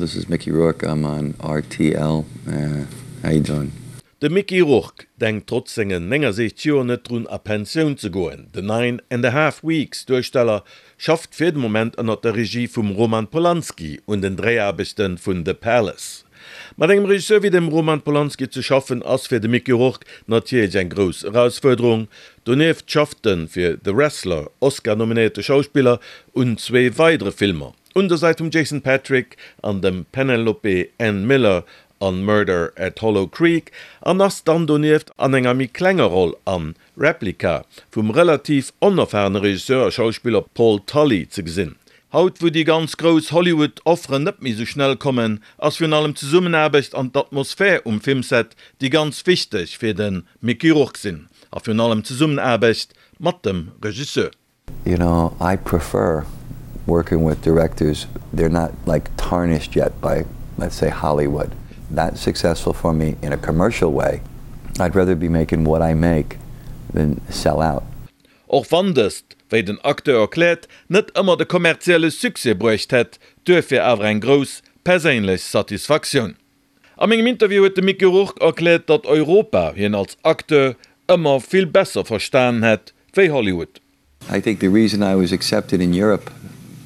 this is Mickey Rourke, I'm on RTL, how you doing? De Mickey Rourke denkt trotz sengen 69 Joer net drun a Pensioun ze goen. Den Nine and a Half Weeks Duersteller schafft fir de Moment ënnert der Regie vum Roman Polanski un den Dréiaarbechte vun The Palace. Mat engem Regisseur wéi dem Roman Polanski ze schaffen ass fir de Mickey Rourke natierlech eng grouss Erausfuerderung. Donieft schafft de fir The Wrestler Oscar-nominéierte Schauspiller un zwee weidere Filmer, un der Säit vum Jason Patric an dem Penelope Ann Miller an Murder at Hollow Creek an ass dann donieft an enger méi klenger Roll an Replica vum relativ onerfarene Regisseur a Schauspiller Paul Tully ze gesinn. Haut wou déi ganz grouss Hollywood Offeren net méi sou schnell kommen, ass virun allem d'Zesummenaarbecht an d'Atmosphär um Filmset déi ganz wichteg fir de Mickey Rourke sinn a virun allem d'Zesummenaarbecht mat dem Regisseur. You know, I prefer working with directors, they're not like tarnished yet by let's say Hollywood. That's successful for me in a commercial way. I'd rather be making what I make than sell out. Och wann dëst, wéi den Acteur erkläert, net ëmmer de kommerzielle Succès bruecht hätt, duerfir awer eng grouss perséinlech Satisfaktioun. A mengem Interview huet de Mickey Rourke erkläert, datt Europa hien als Acteur ëmmer vill besser verstanen hätt wéi Hollywood. I think the reason I was accepted in Europe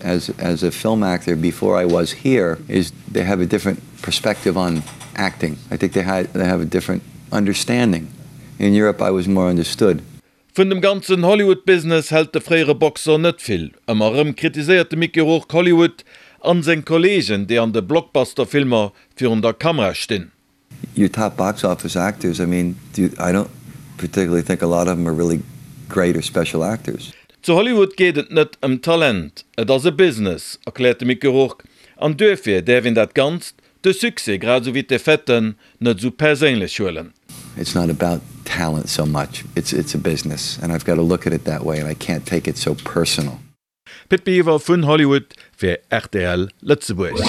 as as a film actor before I was here is they have a different perspective on acting. I think they had they have a different understanding. In Europe I was more understood. Vun dem ganzen Hollywood-Business hält de fréiere Boxer net vill. Ëmmer erëm kritiséiert de Mickey Rourke Hollywood an seng Kolleegen, déi an de Blockbuster-Filmer virun der Kamera stinn. Your top box office actors, I mean, do I don't particularly think a lot of them are really great or special actors. Zu Hollywood geet et net ëm Talent, et ass e Business, erkläert de Mickey Rourke, an duerfir däerf een dat Ganzt, de Succès grad esou wéi d'Defaitë, net esou perséinlech huelen. It's not about talent so much, it's it's a business and I've got to look at it that way and I can't take it so personal. Pit Biwer vun Hollywood fir rtl Lëtzebuerg.